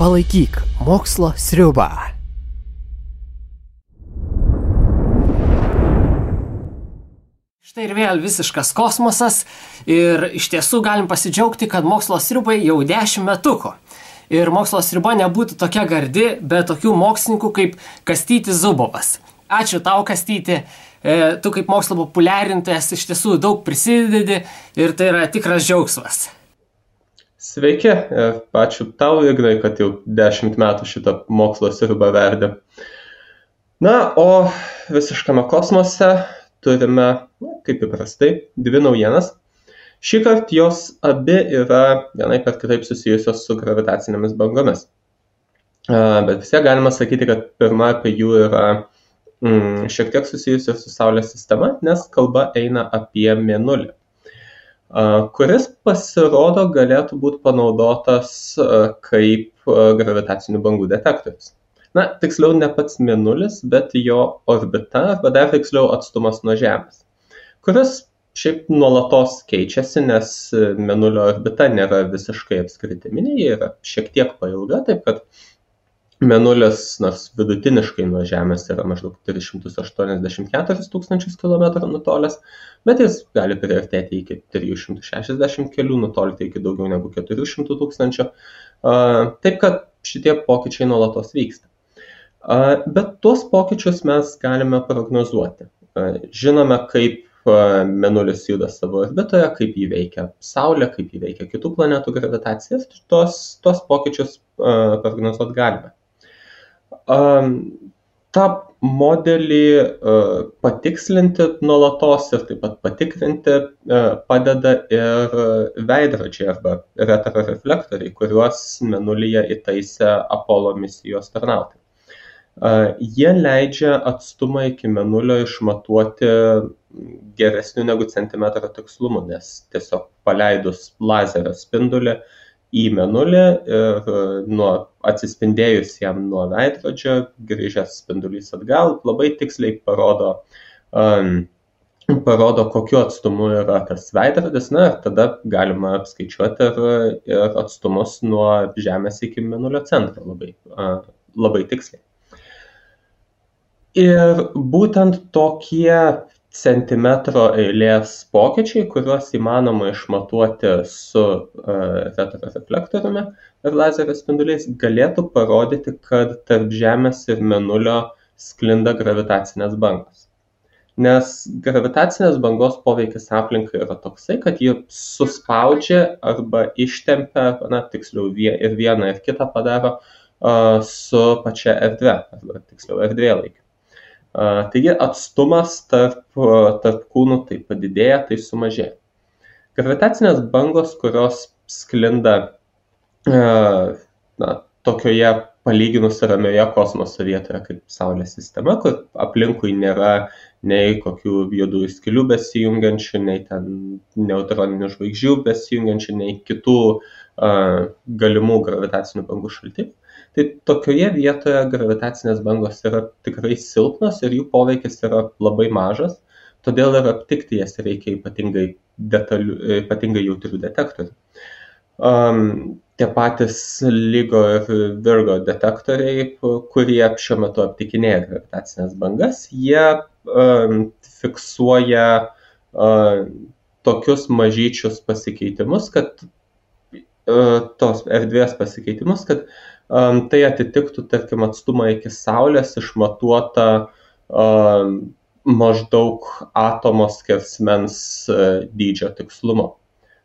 Palaikyk mokslo sriubą. Štai ir vėl visiškas kosmosas ir iš tiesų galim pasidžiaugti, kad mokslo sriubai jau 10 metukų. Ir mokslo sriuba nebūtų tokia gardi be tokių mokslininkų kaip Kastytis Zubovas. Ačiū tau, Kastyti. Tu kaip mokslo populiarintojas iš tiesų daug prisidedi ir tai yra tikras džiaugsmas. Sveiki, ačiū tau, Ignai, kad jau 10 metų šitą mokslo sriubą verdi. Na, o visiškame kosmose turime, kaip įprastai, 2 naujienas. Šįkart jos abi yra vienaip ar kitaip susijusios su gravitacinėmis bangomis. Bet vis tiek galima sakyti, kad pirma apie jų yra šiek tiek susijusios su Saulės sistema, nes kalba eina apie Mėnulį, kuris pasirodo galėtų būti panaudotas kaip gravitacinių bangų detektorius. Na, tiksliau ne pats Mėnulis, bet jo orbita, arba dar tiksliau atstumas nuo Žemės, kuris šiaip nuolatos keičiasi, nes Mėnulio orbita nėra visiškai apskritiminė, ji yra šiek tiek pailga, taip kad Mėnulis, nors vidutiniškai nuo Žemės yra maždaug 384 tūkstančius kilometrų nutolęs, bet jis gali priartėti iki 360 kelių, nutolti iki daugiau negu 400 tūkstančių, taip kad šitie pokyčiai nuolatos vyksta. Bet tuos pokyčius mes galime prognozuoti. Žinome, kaip Mėnulis juda savo orbitoje, kaip jį veikia Saulė, kaip jį veikia kitų planetų gravitacijas, tuos pokyčius prognozuoti galime. tą modelį patikslinti nuolatos ir taip pat patikrinti padeda ir veidrodžiai arba retroreflektoriai, kuriuos Mėnulyje įtaisė Apollo misijos tarnautojai. Jie leidžia atstumą iki Mėnulio išmatuoti geresniu negu centimetro tikslumu, nes tiesiog paleidus lazerio spindulį į Mėnulį ir atsispindėjus jam nuo veidrodžio, grįžęs spindulys atgal, labai tiksliai parodo, kokiu atstumu yra tas veidrodis, na ir tada galima apskaičiuoti ir atstumus nuo Žemės iki Mėnulio centro labai tiksliai. Ir būtent tokie centimetro eilės pokyčiai, kuriuos įmanoma išmatuoti su retroreflektoriumi ir lazerio spinduliais, galėtų parodyti, kad tarp Žemės ir Mėnulio sklinda gravitacinės bangos. Nes gravitacinės bangos poveikis aplinkai yra toksai, kad ji suspaudžia arba ištempia, tiksliau ir vieną ir kitą padaro su pačia erdve, arba tiksliau erdvėlaikiu. Taigi atstumas tarp kūnų tai padidėja, tai sumažėja. Gravitacinės bangos, kurios sklinda tokioje palyginus ramioje kosmoso vietoje kaip Saulės sistema, kur aplinkui nėra nei kokių juodųjų skylių besijungiančių, nei ten neutroninių žvaigždžių besijungiančių, nei kitų galimų gravitacinių bangų šaltinių. Tai tokioje vietoje gravitacinės bangos yra tikrai silpnos ir jų poveikis yra labai mažas, todėl ir aptikti jas reikia ypatingai jautrių detektorių. Tie patys LIGO ir Virgo detektoriai, kurie šiuo metu aptikinėja gravitacinės bangas, jie fiksuoja tokius mažyčius pasikeitimus, kad tos erdvės pasikeitimus, kad tai atitiktų, tarkim, atstumą iki Saulės išmatuota maždaug atomo skersmens dydžio tikslumo.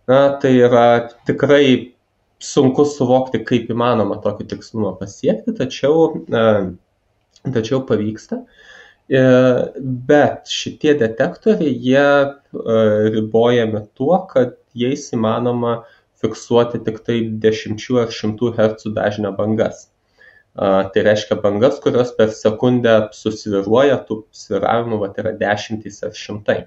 Tai yra tikrai sunku suvokti, kaip įmanoma tokį tikslumą pasiekti, tačiau pavyksta. Bet šitie detektoriai, jie ribojami tuo, kad jais įmanoma fiksuoti tik tai 10 ar 100 Hz dažnio bangas. Tai reiškia bangas, kurios per sekundę susviruoja, tų sviravimų yra 10 ar 100.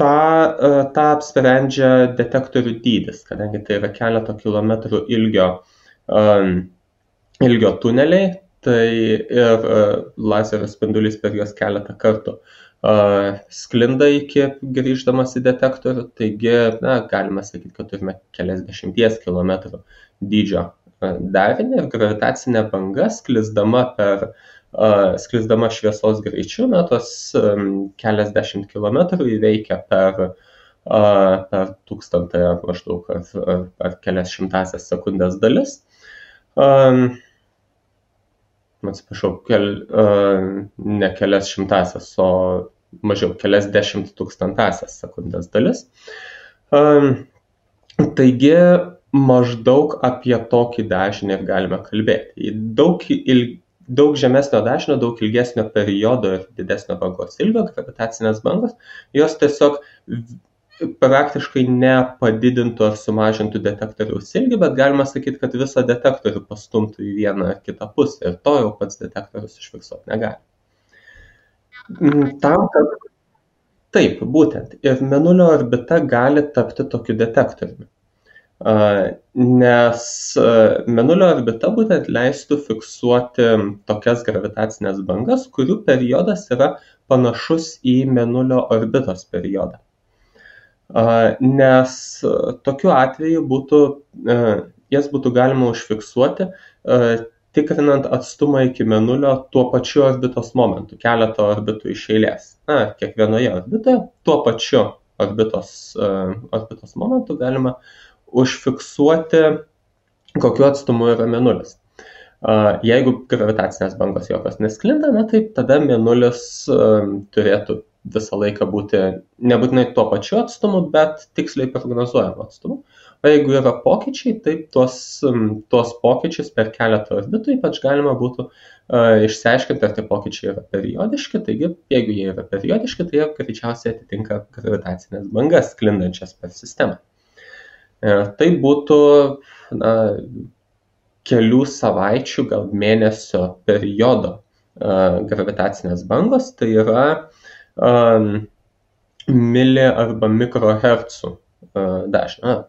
Ta apsprendžia detektorių dydis, kadangi tai yra keleto kilometrų ilgio tuneliai, tai ir lazerio spindulys per juos keletą kartų sklinda iki grįždamas į detektorių, taigi galima sakyti, kad turime keliasdešimties kilometrų dydžio darinį ir gravitacinė banga sklisdama šviesos greičiu, tos keliasdešimt kilometrų įveikia per tūkstantąją maždaug ar kelias šimtasias sekundės dalis. Atsiprašau, ne kelias šimtasias, o mažiau kelias dešimt tūkstantasias sekundės dalis. Taigi maždaug apie tokį dažnį ir galime kalbėti. Daug žemesnio dažnio, daug ilgesnio periodo ir didesnio bangos ilgio gravitacinės bangos, jos tiesiog praktiškai nepadidintų ar sumažintų detektoriaus ilgį, bet galima sakyti, kad visą detektorių pastumtų į vieną ar kitą pusę ir to jau pats detektorius užfiksuoti negali. Taip, būtent. Ir Mėnulio orbita gali tapti tokiu detektoriumi. Nes Mėnulio orbita būtent leistų fiksuoti tokias gravitacinės bangas, kurių periodas yra panašus į Mėnulio orbitos periodą. Nes tokiu atveju jas būtų galima užfiksuoti, tikrinant atstumą iki Mėnulio tuo pačiu orbitos momentu, keletą orbitų iš eilės. Kiekvienoje orbitoje tuo pačiu orbitos momentu galima užfiksuoti, kokiu atstumu yra Mėnulis. Jeigu gravitacinės bangos jokios nesklinda, tai tada Mėnulis turėtų visą laiką būti nebūtinai tuo pačiu atstumu, bet tiksliai prognozuojamu atstumu. O jeigu yra pokyčiai, tai tuos pokyčius per keletą orbitų ypač galima būtų išsiaiškinti, ar tie pokyčiai yra periodiški. Taigi, jeigu jie yra periodiški, tai jie greičiausiai atitinka gravitacinės bangas sklindančias per sistemą. Tai būtų kelių savaičių, gal mėnesio periodo gravitacinės bangos, tai yra mili arba mikrohercų dažnio,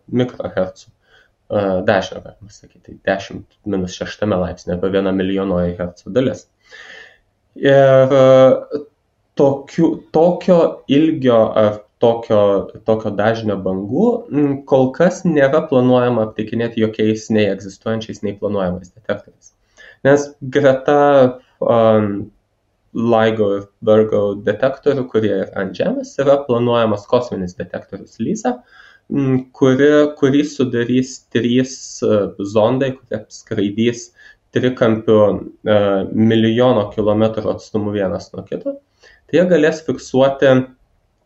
galima sakyti, 10⁻6 laipsnio arba 1 milijonoji hercų dalis. Ir tokio ilgio ar tokio dažnio bangų kol kas nėra planuojama aptikinėti jokiais nei egzistuojančiais, nei planuojamais detektoriais. Nes greta LIGO ir Virgo detektorių, kurie yra ant Žemės, yra planuojamas kosminis detektorius LISA, kurį sudarys 3 zondai, kurie skraidys trikampiu milijono kilometrų atstumu vienas nuo kito. Tai jie galės fiksuoti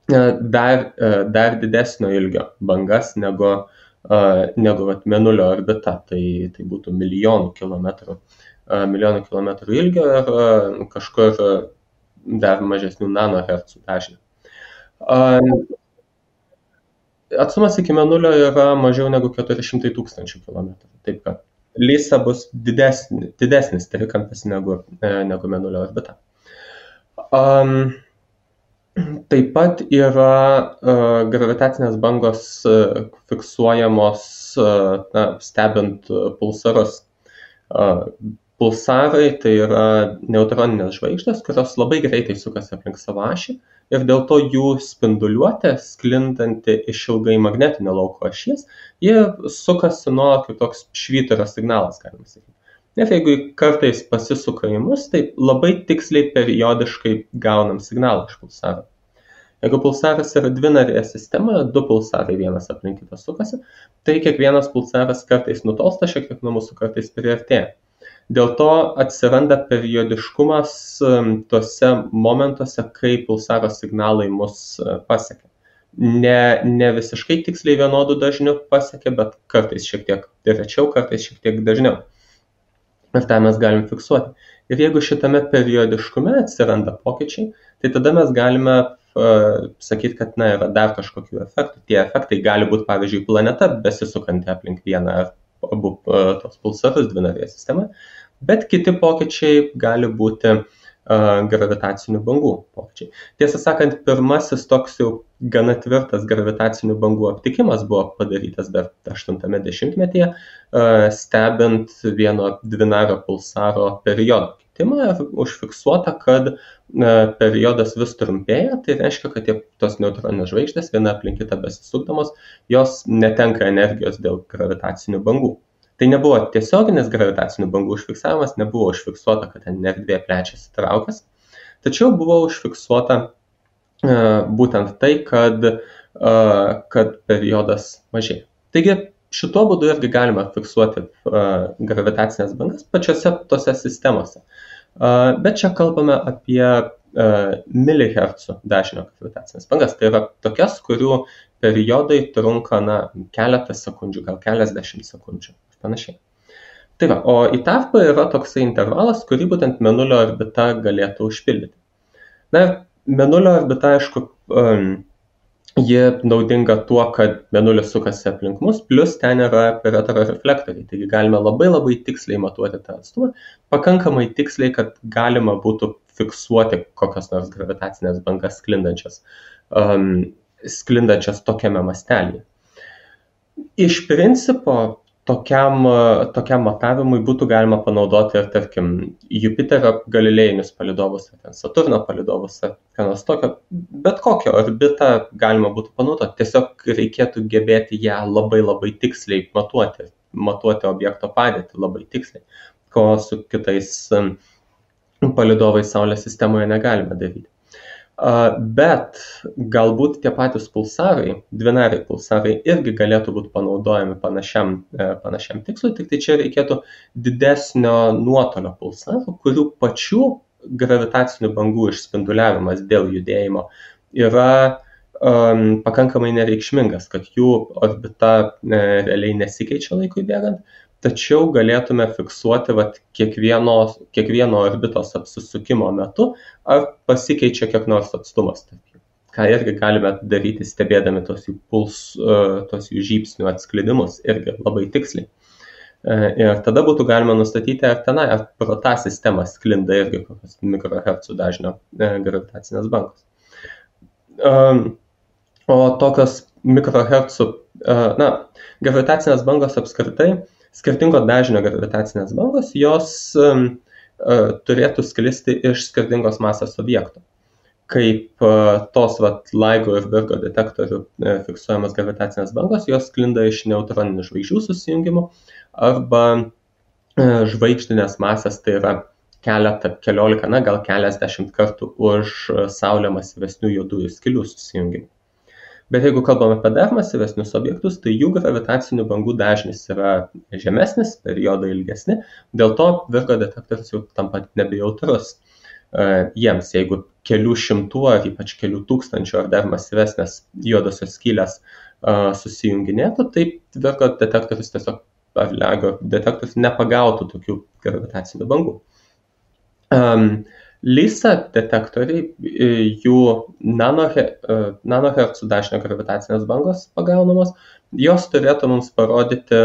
dar didesnio ilgio bangas negu Mėnulio orbita. Tai būtų milijonų kilometrų ilgio ir kažkur dar mažesnių nanohercų dažnių. Atstumas iki Mėnulio yra mažiau negu 400 000 kilometrų. Taip kad LISA bus didesnis trikampis negu Mėnulio orbita. Taip pat yra gravitacinės bangos fiksuojamos stebint pulsarus. Pulsarai tai yra neutroninės žvaigždės, kurios labai greitai sukasi aplink savo ašį ir dėl to jų spinduliuotė, sklindanti iš ilgai magnetinio lauko ašies, jie sukasi nuolat kaip toks švyturio signalas, galima sakyti. Ir jeigu kartais pasisuka į mus, tai labai tiksliai periodiškai gaunam signalą iš pulsaro. Jeigu pulsaras yra dvinarėje sistemoje, 2 pulsarai vienas aplink kitą sukasi, tai kiekvienas pulsaras kartais nutolsta šiek tiek nuo mūsų, kartais priartėja. Dėl to atsiranda periodiškumas tuose momentuose, kai pulsaro signalai mus pasiekia. Ne visiškai tiksliai vienodų dažnių pasiekia, bet kartais šiek tiek rečiau, kartais šiek tiek dažniau. Ir tą mes galim fiksuoti. Ir jeigu šitame periodiškume atsiranda pokyčiai, tai tada mes galime sakyti, kad yra dar kažkokių efektų. Tie efektai gali būti, pavyzdžiui, planeta besisukanti aplink vieną ar abu tos pulsarus dvinarėje sistemoje, bet kiti pokyčiai gali būti gravitacinių bangų pokyčiai. Tiesą sakant, pirmasis toks jau gana tvirtas gravitacinių bangų aptikimas buvo padarytas dar 80-metyje, stebint vieno dvinario pulsaro periodo kitimą ir užfiksuota, kad periodas vis trumpėja, tai reiškia, kad tos neutroninės žvaigždės viena aplink kitą besisukdamos, jos netenka energijos dėl gravitacinių bangų. Tai nebuvo tiesioginis gravitacinių bangų užfiksavimas, nebuvo užfiksuota, kad ten erdvė plečiasi traukas, tačiau buvo užfiksuota būtent tai, kad periodas mažėja. Taigi šituo būdu irgi galima fiksuoti gravitacinės bangas pačiose tose sistemose. Bet čia kalbame apie milihercų dažnio gravitacinės bangas. Tai yra tokias, kurių periodai trunka keletą sekundžių, gal keliasdešimt sekundžių. Panašiai. Tai va, o į tarpą yra toksai intervalas, kurį būtent Mėnulio orbita galėtų užpildyti. Mėnulio orbita, aišku, ji naudinga tuo, kad Mėnulis sukasi aplink mus, plus ten yra retroreflektoriai, taigi galime labai tiksliai matuoti tą atstumą, pakankamai tiksliai, kad galima būtų fiksuoti kokios nors gravitacinės bangas sklindančias tokiame mastelyje. Iš principo, tokiam matavimui būtų galima panaudoti ir, tarkim, Jupiterio galilėjinius palydovus, Saturno palydovus, ką nors tokio, bet kokią orbitą galima būtų panaudoti. Tiesiog reikėtų gebėti ją labai tiksliai matuoti objekto padėtį labai tiksliai, ko su kitais palydovais Saulės sistemoje negalime daryti. Bet galbūt tie patys pulsarai, dvinariai pulsarai irgi galėtų būti panaudojami panašiam tikslui, tik tai čia reikėtų didesnio nuotolio pulsarų, kurių pačių gravitacinių bangų išspinduliavimas dėl judėjimo yra pakankamai nereikšmingas, kad jų orbita realiai nesikeičia laikui bėgant, tačiau galėtume fiksuoti kiekvieno orbitos apsisukimo metu, ar pasikeičia kiek nors atstumas. Ką irgi galime daryti stebėdami tos jų žybsnių atsklidimus irgi labai tiksliai. Ir tada būtų galima nustatyti, ar pro tą sistemą sklinda irgi kokios mikrohercų dažnio gravitacinės bangos. O tokios mikrohercų, gravitacinės bangos apskritai, skirtingo dažnio gravitacinės bangos, jos turėtų sklisti iš skirtingos masės objektų. Kaip tos LIGO ir Virgo detektorių fiksuojamas gravitacinės bangos, jos sklinda iš neutroninių žvaigždžių susijungimų arba žvaigždinės masės, tai yra keliolika, gal keliasdešimt kartų už Saulę masyvesnių juodųjų skylių susijungimų. Bet jeigu kalbame apie dar masyvesnius objektus, tai jų gravitacinių bangų dažnis yra žemesnis, periodai ilgesni, dėl to Virgo detektorius jau tampa nebejautrus jiems. Jeigu kelių šimtų ar ypač kelių tūkstančių ar dar masyvesnės juodosios skylės susijunginėtų, tai Virgo detektorius tiesiog, ar LIGO detektorius nepagautų tokių gravitacinių bangų. LISA detektoriai, jų nanohercų dažnio gravitacinės bangos pagaunamos, jos turėtų mums parodyti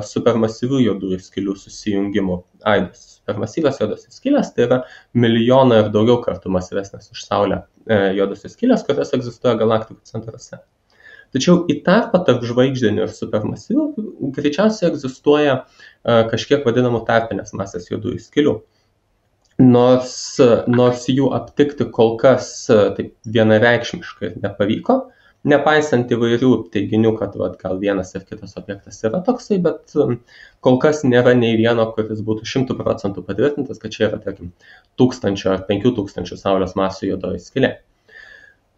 supermasyvių juodųjų skylių susijungimų aidus. Supermasyvios juodosios skylės tai yra milijoną ir daugiau kartų masyvesnės už Saulę juodosios skylės, kurios egzistuoja galaktikų centruose. Tačiau į tarpą tarp žvaigždinių ir supermasyvių greičiausiai egzistuoja kažkiek vadinamų tarpinės masės juodųjų skylių. Nors jų aptikti kol kas taip vienareikšmiškai nepavyko, nepaisant įvairių teiginių, kad gal vienas ir kitas objektas yra toksai, bet kol kas nėra nei vieno, kuris būtų 100% patvirtintas, kad čia yra, tarkim, 1000 ar 5000 Saulės masių juodoji skylė.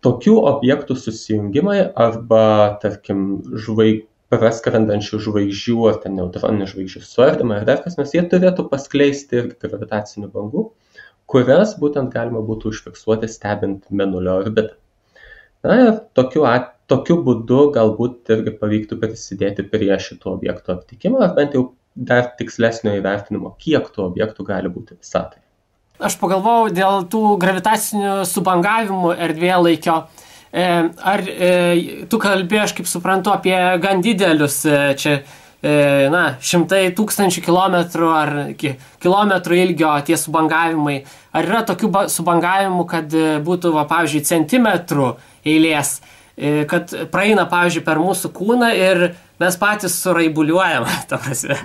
Tokių objektų susijungimai arba, tarkim, praskrendančių žvaigždžių ar ten neutroninių žvaigždžių suardymą ir dar kas nors, jie turėtų paskleisti ir gravitacinių bangų, kurias būtent galima būtų užfiksuoti stebint Mėnulio orbitą. Ir tokiu būdu galbūt irgi pavyktų prisidėti prie šitų objektų aptikimo, ar bent jau dar tikslesnio įvertinimo, kiek tų objektų gali būti visatoje. Aš pagalvojau dėl tų gravitacinių subangavimų erdvėlaikio. Ar tu kalbėjai, aš kaip suprantu, apie gan didelius čia šimtai tūkstančių kilometrų ar kilometrų ilgio tie subangavimai. Ar yra tokių subangavimų, kad būtų, pavyzdžiui, centimetrų eilės, kad praeina, pavyzdžiui, per mūsų kūną ir mes patys suraibuliuojam, ta prasme?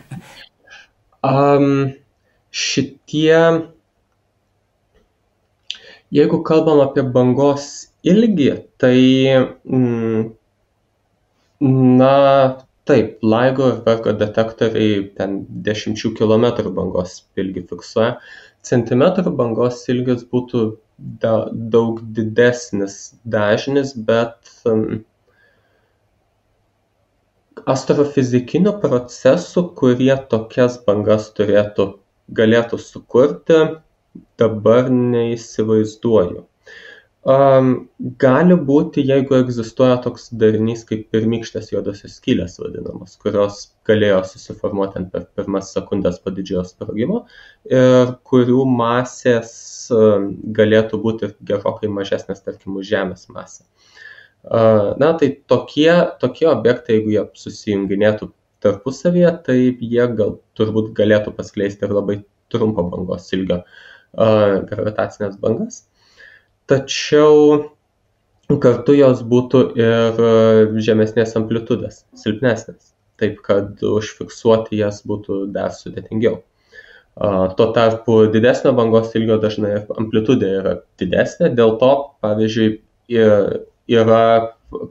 Jeigu kalbam apie bangos ilgį, tai taip, LIGO ir Virgo detektoriai ten 10 kilometrų bangos ilgį fiksuoja. Centimetrų bangos ilgis būtų daug didesnis dažnis, bet astrofizikinių procesų, kurie tokias bangas galėtų sukurti, dabar neįsivaizduoju. Gali būti, jeigu egzistuoja toks darinys kaip pirmykštės juodosios skylės vadinamos, kurios galėjo susiformuoti per pirmas sekundės po didžiojo sprogimo ir kurių masės galėtų būti gerokai mažesnės, tarkim, už Žemės masę. Tai tokie objektai, jeigu jie susijunginėtų tarpusavyje, tai jie turbūt galėtų paskleisti ir labai trumpo bangos ilgio gravitacinės bangas. Tačiau kartu jos būtų ir žemesnės amplitudės, silpnesnės, taip kad užfiksuoti jas būtų dar sudėtingiau. Tuo tarpu didesnio bangos ilgio dažnai amplitudė yra didesnė, dėl to, pavyzdžiui, yra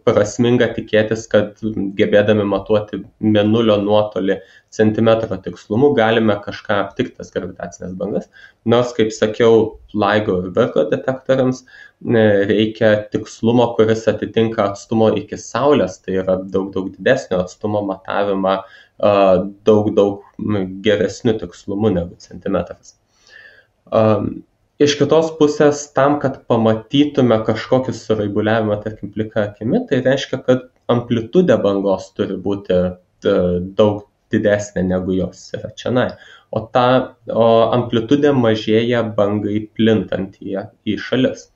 prasminga tikėtis, kad gebėdami matuoti mėnulio nuotolį centimetro tikslumu galime kažką aptikti tas gravitacinės bangas. Nors, kaip sakiau, LIGO ir Virgo detektoriams reikia tikslumo, kuris atitinka atstumo iki Saulės, tai yra daug didesnio atstumo matavimą daug geresniu tikslumu negu centimetras. Iš kitos pusės, tam, kad pamatytume kažkokį suraibuliavimą, tarkim, plika akimi, tai reiškia, kad amplitudė bangos turi būti daug didesnė negu jos yra čionai. O amplitudė mažėja bangai plintant į šalis.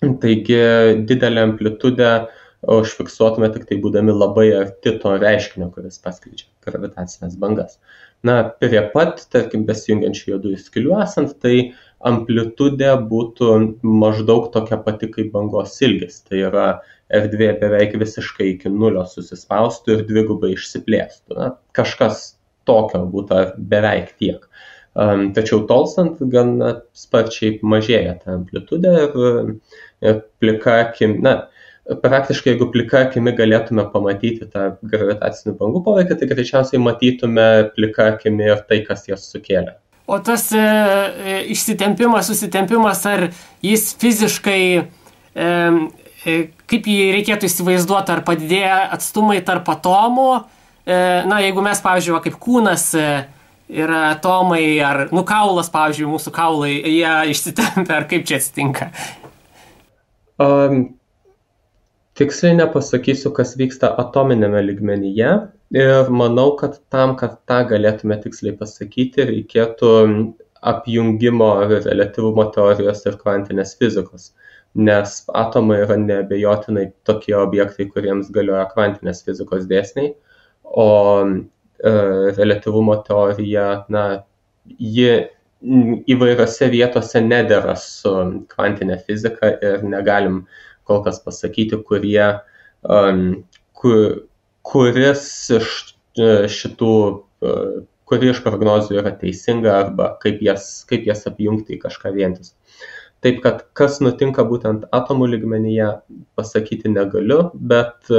Taigi didelę amplitudę užfiksuotume tik tai būdami labai arti to reiškinio, kuris paskleidžia gravitacinės bangas. Prie pat, tarkim, besijungiančių juodųjų skylių esant, tai amplitudė būtų maždaug tokia pati kaip bangos ilgis. Tai yra erdvė beveik visiškai iki nulio susispaustų ir dvigubai išsiplėstų. Kažkas tokio būtų beveik tiek. Tačiau tolstant gan sparčiai mažėja ta amplitudė ir plika akimi, praktiškai jeigu plika akimi galėtume pamatyti tą gravitacinių bangų poveikį, tai greičiausiai matytume plika akimi ir tai, kas jas sukėlė. O tas išsitempimas, susitempimas, ar jis fiziškai, kaip jį reikėtų įsivaizduoti, ar padidėja atstumai tarp atomų? Jeigu mes, pavyzdžiui, kaip kūnas yra atomai, ar kaulas, pavyzdžiui, mūsų kaulai, jie išsitempia, ar kaip čia atsitinka? Tiksliai nepasakysiu, kas vyksta atominėme lygmenyje ir manau, kad tam, kad tą galėtume tiksliai pasakyti, reikėtų apjungimo reliatyvumo teorijos ir kvantinės fizikos, nes atomai yra neabejotinai tokie objektai, kuriems galioja kvantinės fizikos dėsniai, o reliatyvumo teorija, ji įvairiose vietose nedera su kvantinė fizika ir negalim kol kas pasakyti, kuris kuri iš prognozių yra teisinga arba kaip jas apjungti į kažką vientisą. Taip, kad kas nutinka būtent atomų lygmenyje, pasakyti negaliu, bet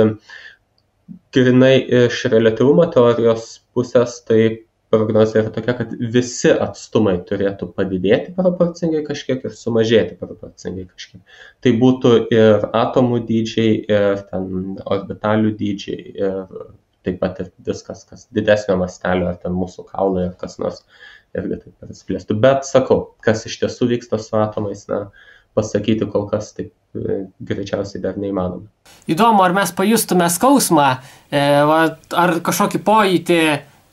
grynai iš reliatyvumo teorijos pusės, tai prognozija yra tokia, kad visi atstumai turėtų padidėti proporcingai kažkiek ir sumažėti proporcingai kažkiek. Tai būtų ir atomų dydžiai, ir ten orbitalių dydžiai, ir taip pat ir viskas, kas didesnio mastelio, ar ten mūsų kaulai, ar kas nors irgi taip pasiplėstų. Bet sakau, kas iš tiesų vyksta su atomais, pasakyti kol kas taip greičiausiai dar neįmanoma. Įdomu, ar mes pajustume skausmą, ar kažkokį pojūtį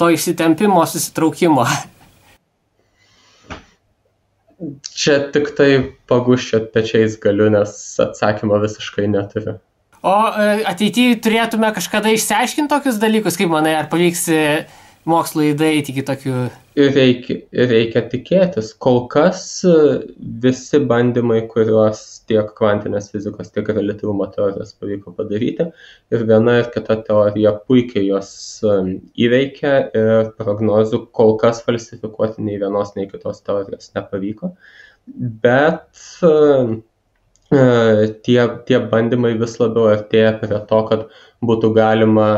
to išsitempimo, susitraukimo? Čia tik tai pagūščiot pečiais galiu, nes atsakymo visiškai neturiu. O ateityje turėtume kažkada išsiaiškinti tokius dalykus, kaip manai, ar pavyks mokslui daeiti iki tokių... Reikia tikėtis. Kol kas visi bandymai, kuriuos tiek kvantinės fizikos, tiek reliatyvumo teorijos pavyko padaryti, ir viena ir kita teorija puikiai jos įveikia ir prognozių kol kas falsifikuoti nei vienos, nei kitos teorijos nepavyko. Bet tie bandymai vis labiau artėja prie to, kad būtų galima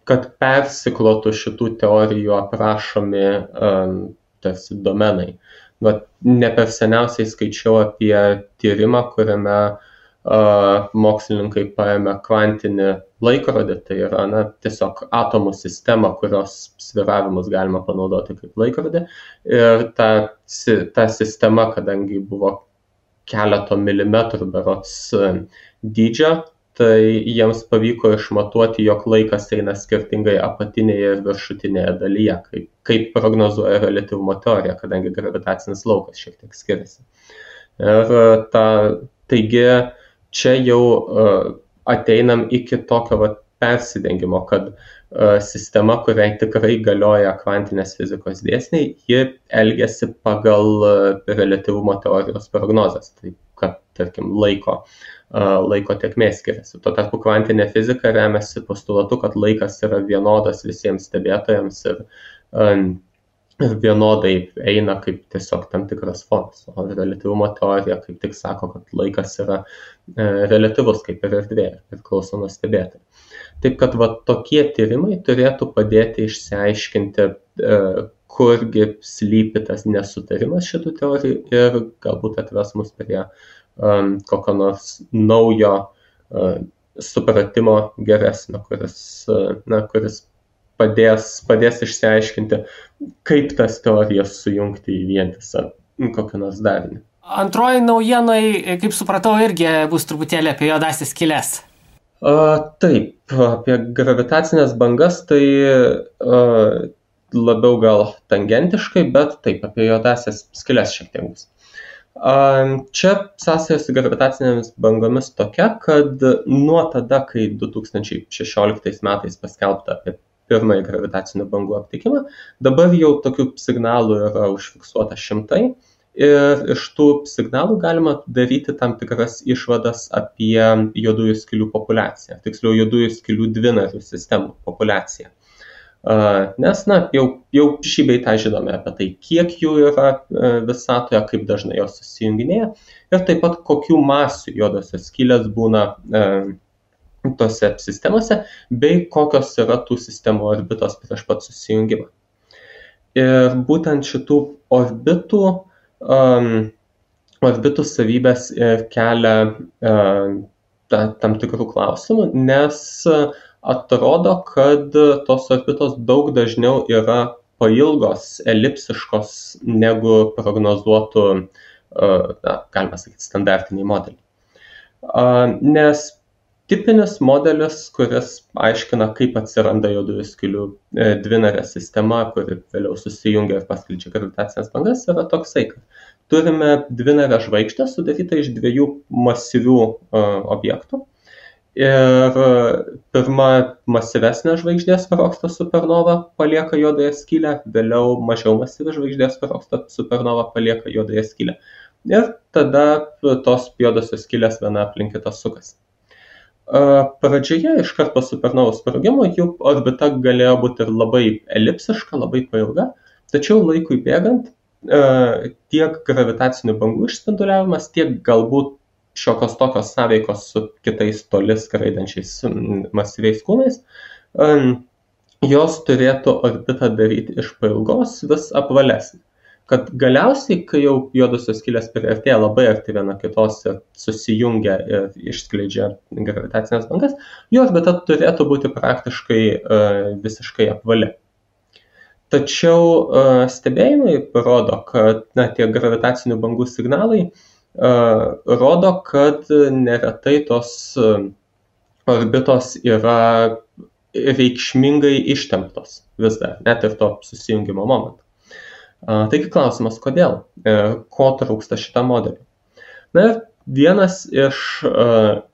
kad persiklotų šitų teorijų aprašomi tarsi domenai. Ne per seniausiai skaičiau apie tyrimą, kuriame mokslininkai paėmė kvantinį laikrodį, tai yra tiesiog atomų sistemą, kurios sviravimus galima panaudoti kaip laikrodį. Ir ta sistema, kadangi buvo keleto milimetrų berods dydžio, tai jiems pavyko išmatuoti, jog laikas eina skirtingai apatinėje ir viršutinėje dalyje, kaip prognozuoja reliatyvumo teorija, kadangi gravitacinis laukas šiek tiek skiriasi. Ir taigi čia jau ateinam iki tokio persidengimo, kad sistema, kuriai tikrai galioja kvantinės fizikos dėsniai, ji elgiasi pagal reliatyvumo teorijos prognozes, tai kad, tarkim, laiko tėkmės skiriasi. Tuo tarpu kvantinė fizika remiasi postulatu, kad laikas yra vienodas visiems stebėtojams ir vienodai eina kaip tiesiog tam tikras fonas. O reliatyvumo teorija kaip tik sako, kad laikas yra reliatyvus kaip ir erdvė, priklauso nuo stebėtojų. Taip kad tokie tyrimai turėtų padėti išsiaiškinti, kurgi slypi tas nesutarimas šitų teorijų ir galbūt atves mus prie kokio nors naujo supratimo geresnio, kuris padės išsiaiškinti, kaip tas teorijas sujungti į vientisą kokią nors darinį. Antroji naujienai, kaip supratau, irgi bus truputėlį apie juodąsias skyles. Taip, apie gravitacinės bangas tai labiau gal tangentiškai, bet taip, apie juodąsias skyles šiek tiek bus. Čia sąsaja su gravitacinėmis bangomis tokia, kad nuo tada, kai 2016 metais paskelbta apie pirmąjį gravitacinių bangų aptikimą, dabar jau tokių signalų yra užfiksuota šimtai ir iš tų signalų galima daryti tam tikras išvadas apie juodųjų skylių populiaciją, tiksliau juodųjų skylių dvinarių sistemų populiaciją. Nes jau šį bei tą žinome apie tai, kiek jų yra visatoje, kaip dažnai jos susijunginėja ir taip pat kokių masių juodosios skylės būna tose sistemose, bei kokios yra tų sistemų orbitos prieš pat susijungimą. Ir būtent šitų orbitų savybės kelia tam tikrų klausimų, nes atrodo, kad tos orbitos daug dažniau yra pailgos, elipsiškos, negu prognozuotų, galima sakyti, standartiniai modeliai. Nes tipinis modelis, kuris aiškina, kaip atsiranda juodųjų skylių dvinarė sistema, kuri vėliau susijungia ir paskleidžia gravitacinės bangas, yra toksai, kad turime dvinarę žvaigždę sudarytą iš dviejų masyvių objektų. Ir pirma masyvesnė žvaigždė sprogsta supernova palieka juodąją skylę, vėliau mažiau masyvi žvaigždė sprogsta supernova palieka juodąją skylę. Ir tada tos juodosios skylės viena aplink kitą sukasi. Pradžioje, iškart po supernovos sprogimo, jų orbita galėjo būti ir labai elipsiška, labai pailga, tačiau laikui bėgant tiek gravitacinių bangų išspinduliavimas, tiek galbūt šiokios tokios sąveikos su kitais toli skraidančiais masyviais kūnais, jos turėtų orbitą daryti iš pailgos vis apvalesnį. Kad galiausiai, kai jau juodosios skylės priartėja labai arti viena kitos ir susijungia ir išskleidžia gravitacinės bangas, jų orbita turėtų būti praktiškai visiškai apvali. Tačiau stebėjimai rodo, kad tie gravitacinių bangų signalai rodo, kad neretai tos orbitos yra reikšmingai ištemptos vis dar, net ir to susijungimo momentu. Taigi klausimas, kodėl? Ko trūksta šitam modeliui? Ir Vienas iš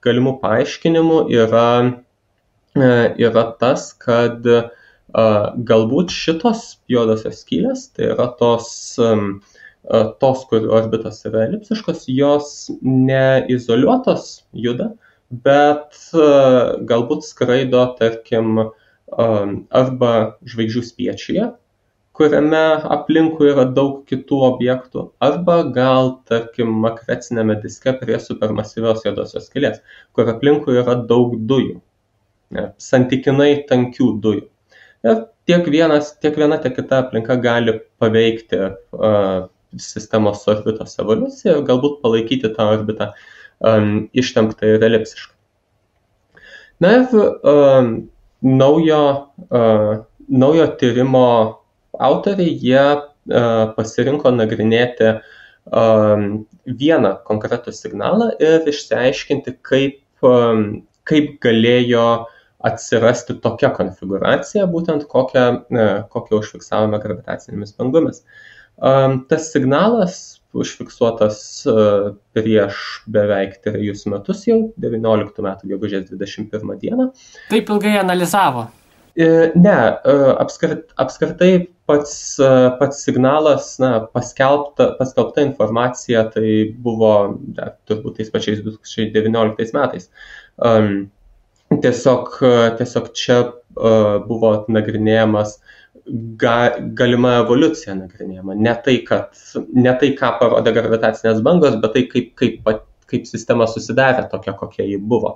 galimų paaiškinimų yra tas, kad galbūt šitos juodosios skylės, tai yra tos, kur orbitos yra elipsiškos, jos neizoliuotos juda, bet galbūt skraido, tarkim, arba žvaigždžių spiečiuje, kuriame aplinkui yra daug kitų objektų, arba gal, tarkim, makrecinėme diske prie supermasyvios juodosios skylės, kur aplinkui yra daug dujų, santykinai tankių dujų. Ir tiek viena, tiek kita aplinka gali paveikti sistemos orbitos evoliuciją ir galbūt palaikyti tą orbitą ištemptą ir elipsišką. Na ir naujo tyrimo autoriai, jie pasirinko nagrinėti vieną konkretų signalą ir išsiaiškinti, kaip galėjo atsirasti tokia konfiguracija, būtent kokią užfiksavome gravitacinėmis bangomis. Tas signalas užfiksuotas prieš beveik 3 metus jau, 19 metų gegužės 21 dieną. Taip ilgai analizavo? Ne, apskritai pats signalas, paskelbta informacija, tai buvo turbūt tais pačiais 2019 metais. Tiesiog čia buvo nagrinėjamas galima evoliucija nagrinėjama. Ne tai, ką parodė gravitacinės bangos, bet tai, kaip sistema susidarė tokia, kokia ji buvo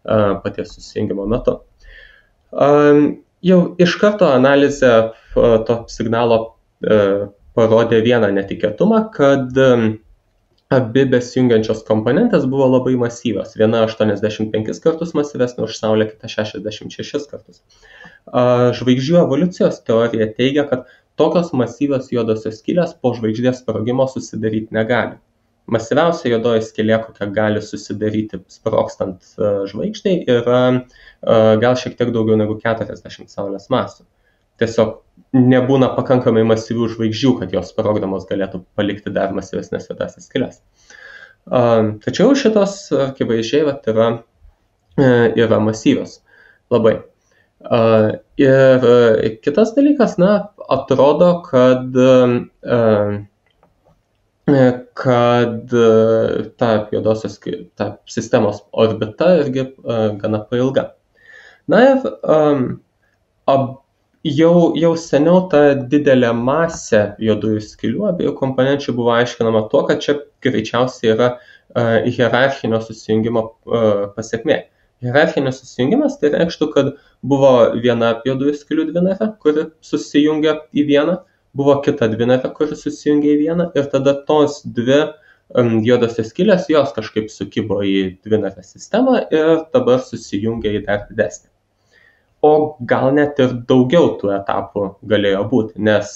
paties susijungimo metu. Jau iš karto analizė to signalo parodė vieną netikėtumą, kad abi besijungiančios komponentės buvo labai masyvios. Viena 85 kartus masyvesnė už Saulę, kita 66 kartus. Žvaigždžių evoliucijos teorija teigia, kad tokios masyvios juodosios skylės po žvaigždės sprogimo susidaryti negali. Masyviausia juodoji skylė, kokia gali susidaryti sprogstant žvaigždei, yra gal šiek tiek daugiau negu 40 Saulės masių. Tiesiog nebūna pakankamai masyvių žvaigždžių, kad jos sprogdamos galėtų palikti dar masyvesnės juodasias skyles. Tačiau šitos akivaizdžiai yra masyvios labai. Ir kitas dalykas, atrodo, kad ta juodosios ta sistemos orbita irgi gana pailga. Na ir jau seniau ta didelė masė juodųjų skylių abiejų komponenčių buvo aiškinama tuo, kad čia greičiausiai yra hierarchinio susijungimo pasekmė. Hierarchinis susijungimas tai reikštų, kad buvo viena juodųjų skylių dvinarė, kuri susijungia į vieną, buvo kita dvinarė, kuri susijungia į vieną, ir tada tos dvi juodosios skylės, jos kažkaip sukibo į dvinarę sistemą ir dabar susijungia į dar didesnį. O gal net ir daugiau tų etapų galėjo būti, nes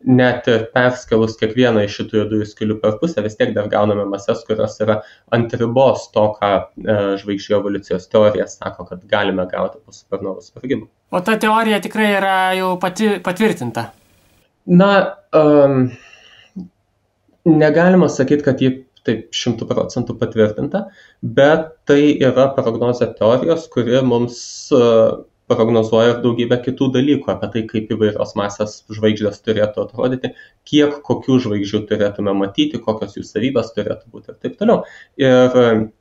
net ir perskelus kiekvieną iš šitų juodųjų skylių per pusę, vis tiek dar gauname mases, kurios yra ant ribos to, ką žvaigždžių evoliucijos teorija sako, kad galime gauti po supernovų sprogimo. O ta teorija tikrai yra jau patvirtinta? Negalima sakyti, kad ji taip 100% patvirtinta, bet tai yra prognozė teorijos, kuri mums prognozuoja ir daugybę kitų dalykų apie tai, kaip įvairios masės žvaigždės turėtų atrodyti, kiek kokių žvaigždžių turėtume matyti, kokios jų savybės turėtų būti ir taip toliau. Ir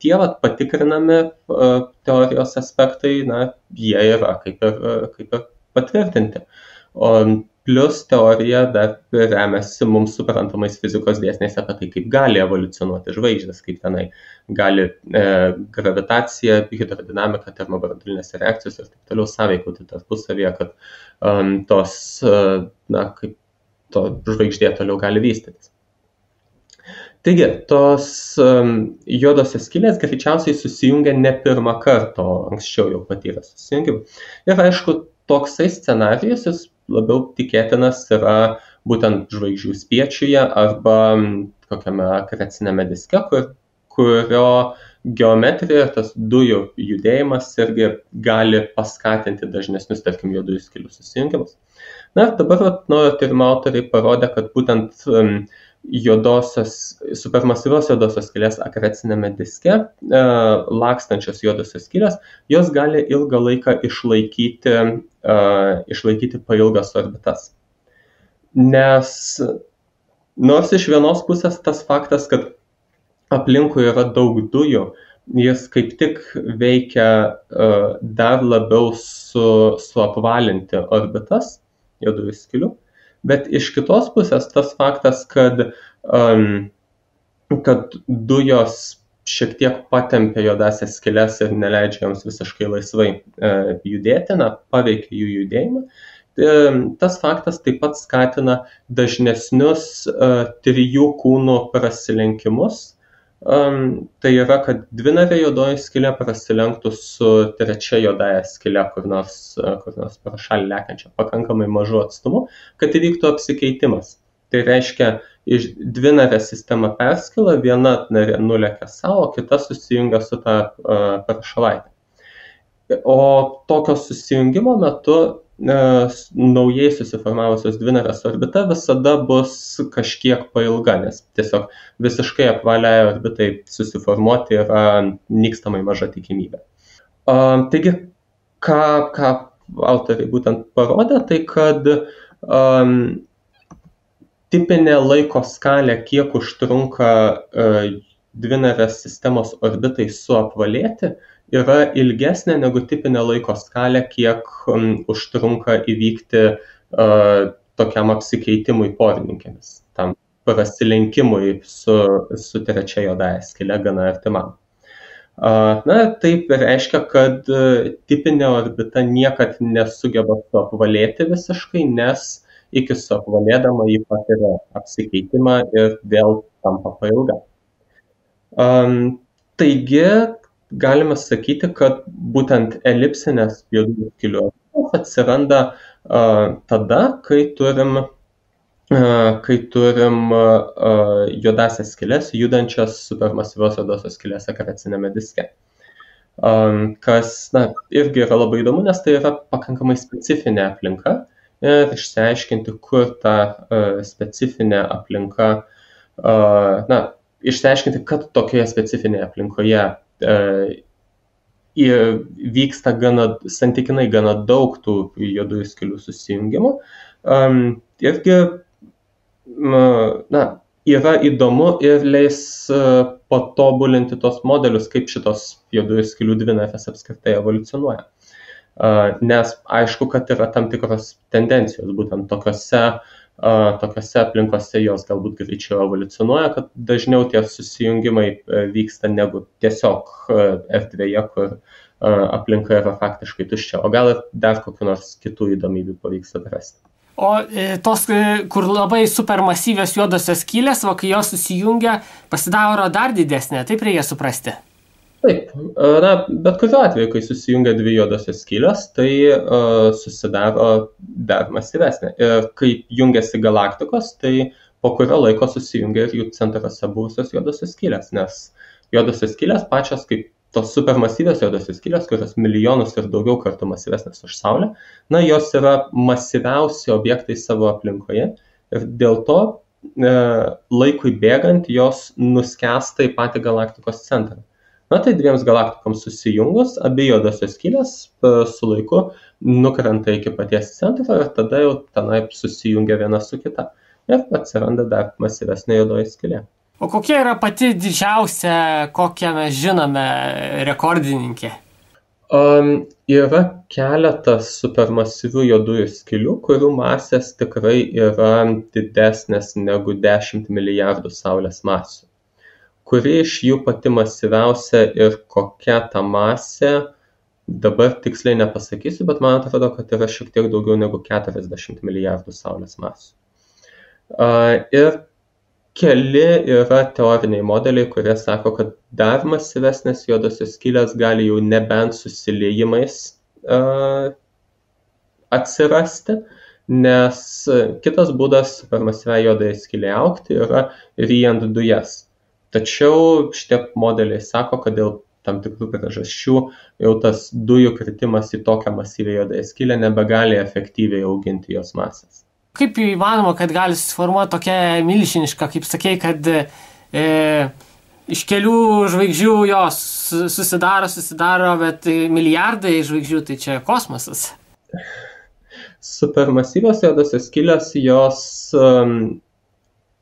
tie patikrinami teorijos aspektai, jie yra kaip ir patvirtinti. O plus teorija dar remiasi mums suprantamais fizikos dėsniais apie tai, kaip gali evoliucionuoti žvaigždės, kaip tenai gali gravitacija, hidrodinamika, termobranduolinės reakcijos ir taip toliau sąveikauti tarpusavyje, kad kaip to žvaigždė toliau gali vystytis. Taigi, tos juodosios skylės greičiausiai susijungia ne pirmą kartą, o anksčiau jau patyrė susijungimą. Ir aišku, toksai scenarijus jis labiau tikėtinas yra būtent žvaigždžių spiečiuje arba kokiame akrecinėme diske, kurio geometrija, tas dujų judėjimas irgi gali paskatinti dažnesnius, tarkim, juodųjų skylių susijungimus. Na ir dabar naujo tyrimo autoriai parodė, kad būtent supermasyvios juodosios skylės akrecinėme diske lakstančios juodosios skylės, jos gali ilgą laiką išlaikyti pailgas orbitas. Nes nors iš vienos pusės tas faktas, kad aplinkui yra daug dujų, jis kaip tik veikia dar labiau suapvalinti orbitas juodųjų skylių. Bet iš kitos pusės tas faktas, kad dujos šiek tiek patempia juodąsias skyles ir neleidžia joms visiškai laisvai judėti, paveikia jų judėjimą. Tas faktas taip pat skatina dažnesnius trijų kūnų prasilenkimus. Tai yra, kad dvinarė juodoji skylė prasilenktų su trečia juodąja skyle kur nors pro šalį lekiančia pakankamai mažu atstumu, kad įvyktų apsikeitimas. Tai reiškia, iš dvinarė sistema perskila, viena narė nulekia savo, kita susijungia su ta prašalaitė. O tokio susijungimo metu naujai susiformavusios dvinarės orbita visada bus kažkiek pailga, nes tiesiog visiškai apvaliai orbitai susiformuoti yra nykstamai maža tikimybė. Taigi, ką autoriai būtent parodė, tai kad tipinė laiko skalė, kiek užtrunka dvinarės sistemos orbitai suapvalėti, yra ilgesnė negu tipinė laiko skalė, kiek užtrunka įvykti tokiam apsikeitimui porininkėmis, tam prasilenkimui su trečia juodąja skyle gana artimam. Taip reiškia, kad tipinė orbita niekad nesugeba suapvalėti visiškai, nes iki suapvalėdama jį patiria apsikeitimą ir vėl tampa pailga. Taigi, galime sakyti, kad būtent elipsinės juodųjų skylių atsiranda tada, kai turim juodąsias skyles judančias supermasyvios juodosios skylės akrecinėme diske. Kas irgi yra labai įdomu, nes tai yra pakankamai specifinė aplinka ir išsiaiškinti, kur ta specifinė aplinka, išsiaiškinti, kad tokioje specifinėje aplinkoje vyksta santykinai gana daug tų juodųjų skylių susijungimų. Irgi yra įdomu ir leis patobulinti tos modelius, kaip šitos juodųjų skylių dvinarės apskritai evoliucionuoja. Nes aišku, kad yra tam tikros tendencijos, būtent tokiose aplinkose jos galbūt greičiau evoliucionuoja, kad dažniau tie susijungimai vyksta negu tiesiog erdvėje, kur aplinka yra faktiškai tuščia, o gal ir dar kokių nors kitų įdomybių pavyks atrasti. O tos, kur labai supermasyvios juodosios skylės, kai jos susijungia, pasidaro dar didesnė, taip reikia suprasti? Taip, bet kuriuo atveju, kai susijungia dvi juodosios skylės, tai susidaro dar masyvesnė. Ir kai jungiasi galaktikos, tai po kurio laiko susijungia ir jų centruose buvusios juodosios skylės, nes juodosios skylės pačios kaip tos supermasyvios juodosios skylės, kurios milijonus ir daugiau kartų masyvesnės už Saulę, jos yra masyviausi objektai savo aplinkoje ir dėl to laikui bėgant jos nuskęsta į patį galaktikos centrą. Tai dviems galaktikoms susijungus, abi juodosios skylės su laiku nukrenta iki paties centro ir tada jau tenai susijungia viena su kita. Ir atsiranda dar masyvesnė juodoji skylė. O kokia yra pati didžiausia, kokią mes žinome, rekordininkė? Yra keletas supermasyvių juodųjų skylių, kurių masės tikrai yra didesnės negu 10 milijardų Saulės masių. Kuri iš jų pati masyviausia ir kokia ta masė, dabar tiksliai nepasakysiu, bet man atrodo, kad yra šiek tiek daugiau negu 40 milijardų Saulės masių. Ir keli yra teoriniai modeliai, kurie sako, kad dar masyvesnės juodosios skylės gali jau nebent susiliejimais atsirasti, nes kitas būdas supermasyviai juodai skylei augti yra ryjant dujas. Tačiau šitie modeliai sako, kad dėl tam tikrų priežasčių jau tas dujų kritimas į tokią masyvią juodąją skylę nebegali efektyviai auginti jos masės. Kaip įmanoma, kad gali susiformuoti tokia milžiniška, kaip sakei, kad iš kelių žvaigždžių jos susidaro, bet milijardai žvaigždžių, tai čia kosmosas. Supermasyvios juodosios skylės, jos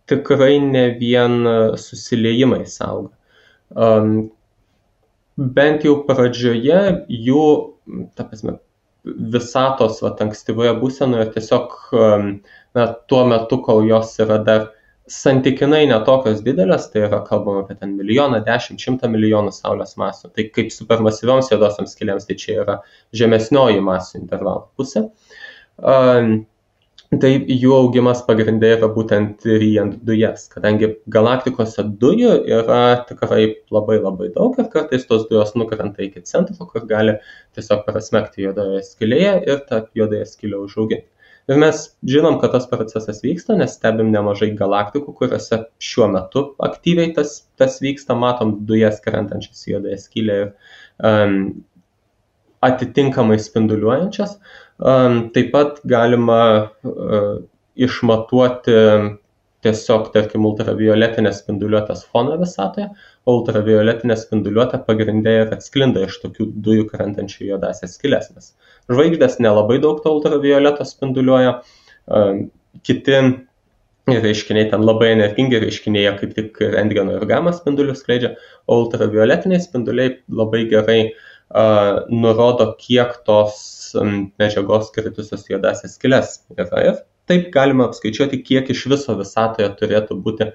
tikrai ne vien susiliejimais auga. Bent jau pradžioje jų, ta prasme, visatos ankstyvoje būsenoje tiesiog tuo metu, kol jos yra dar santykinai netokios didelės, tai yra kalbama apie ten 1, 10, 100 milijonų Saulės masių. Tai kaip supermasyvioms juodosioms skylėms, tai čia yra žemesnioji masių intervalo pusė. Tai jų augimas pagrindė yra būtent ryjant dujas, kadangi galaktikose dujų yra tikrai labai labai daug ir kartais tos dujos nukrenta iki centro, kur gali tiesiog prasmegti juodoje skylėje ir tą juodąją skylę užauginti. Ir mes žinom, kad tas procesas vyksta, nes stebim nemažai galaktikų, kuriuose šiuo metu aktyviai tas vyksta, matom dujas krentančias į juodąją skylę ir atitinkamai spinduliuojančias. Taip pat galima išmatuoti tiesiog, tarkim, ultravioletinės spinduliuotės foną visatoje, o ultravioletinė spinduliuotė pagrindė ir atsklinda iš tokių dujų krentančių juodąsias skyles, nes žvaigždės nelabai daug to ultravioleto spinduliuoja, kiti reiškiniai ten labai energingi reiškiniai, kaip tik rentgeno ir gamma spindulius skleidžia, o ultravioletiniai spinduliai labai gerai nurodo, kiek tos medžiagos kritusios juodąsias skyles yra. Ir taip galima apskaičiuoti, kiek iš viso visatoje turėtų būti,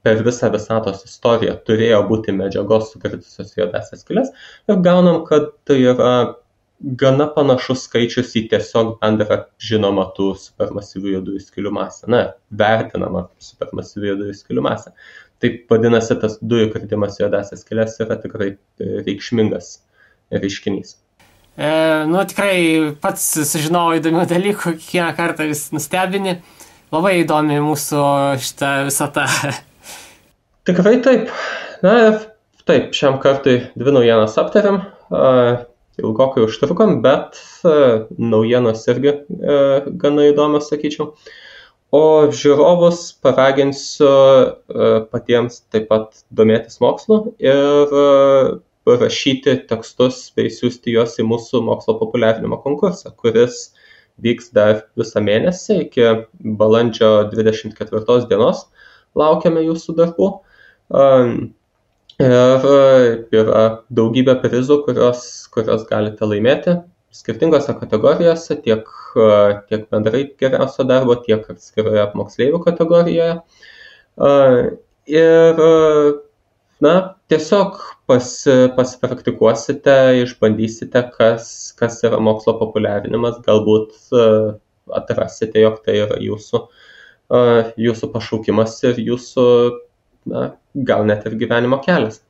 per visą visatos istoriją turėjo būti medžiagos sukritusios juodąsias skyles. Ir gaunam, kad tai yra gana panašus skaičius į tiesiog bendrą žinomą tų supermasyvių juodųjų skylių masę. Vertinama supermasyvių juodųjų skylių masę. Taip vadinasi, tas dujų kritimas juodąsias skyles yra tikrai reikšmingas reiškinys. Tikrai pats sužinojau įdomių dalykų, kiekvieną kartą vis nustebini. Labai įdomi mūsų šitą visatą. Tikrai taip. Taip, šiam kartui 2 naujienas aptariam. Ilgokai užtrukom, bet naujienos irgi gana įdomios, sakyčiau. O žiūrovus paraginsiu patiems taip pat domėtis mokslu ir rašyti tekstus bei siųsti juos į mūsų mokslo populiarinimo konkursą, kuris vyks dar visą mėnesį iki balandžio 24 dienos. Laukiame jūsų darbų. Ir yra daugybė prizų, kurios galite laimėti skirtingose kategorijose, tiek bendrai geriausio darbo, tiek atskiroje moksleivių kategorijoje. Ir tiesiog pasipraktikuosite, išbandysite, kas yra mokslo populiarinimas, galbūt atrasite, jog tai yra jūsų pašaukimas ir jūsų, gal net ir gyvenimo kelias.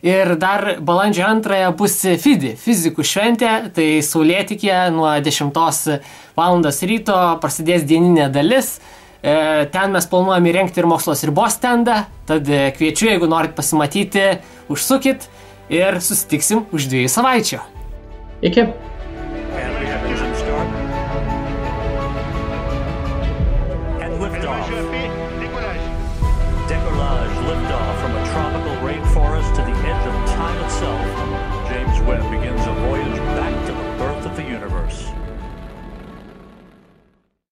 Ir dar balandžio 2 bus FIDI, fizikų šventė, tai saulėtekėje nuo 10 val. Ryto prasidės dieninė dalis. Ten mes planuojame įrengti ir mokslo ribos stendą, tad kviečiu, jeigu norit pasimatyti, užsukit ir susitiksim už 2 savaičių. Iki. Decollage liftoff from a tropical rainforest to the edge of time itself.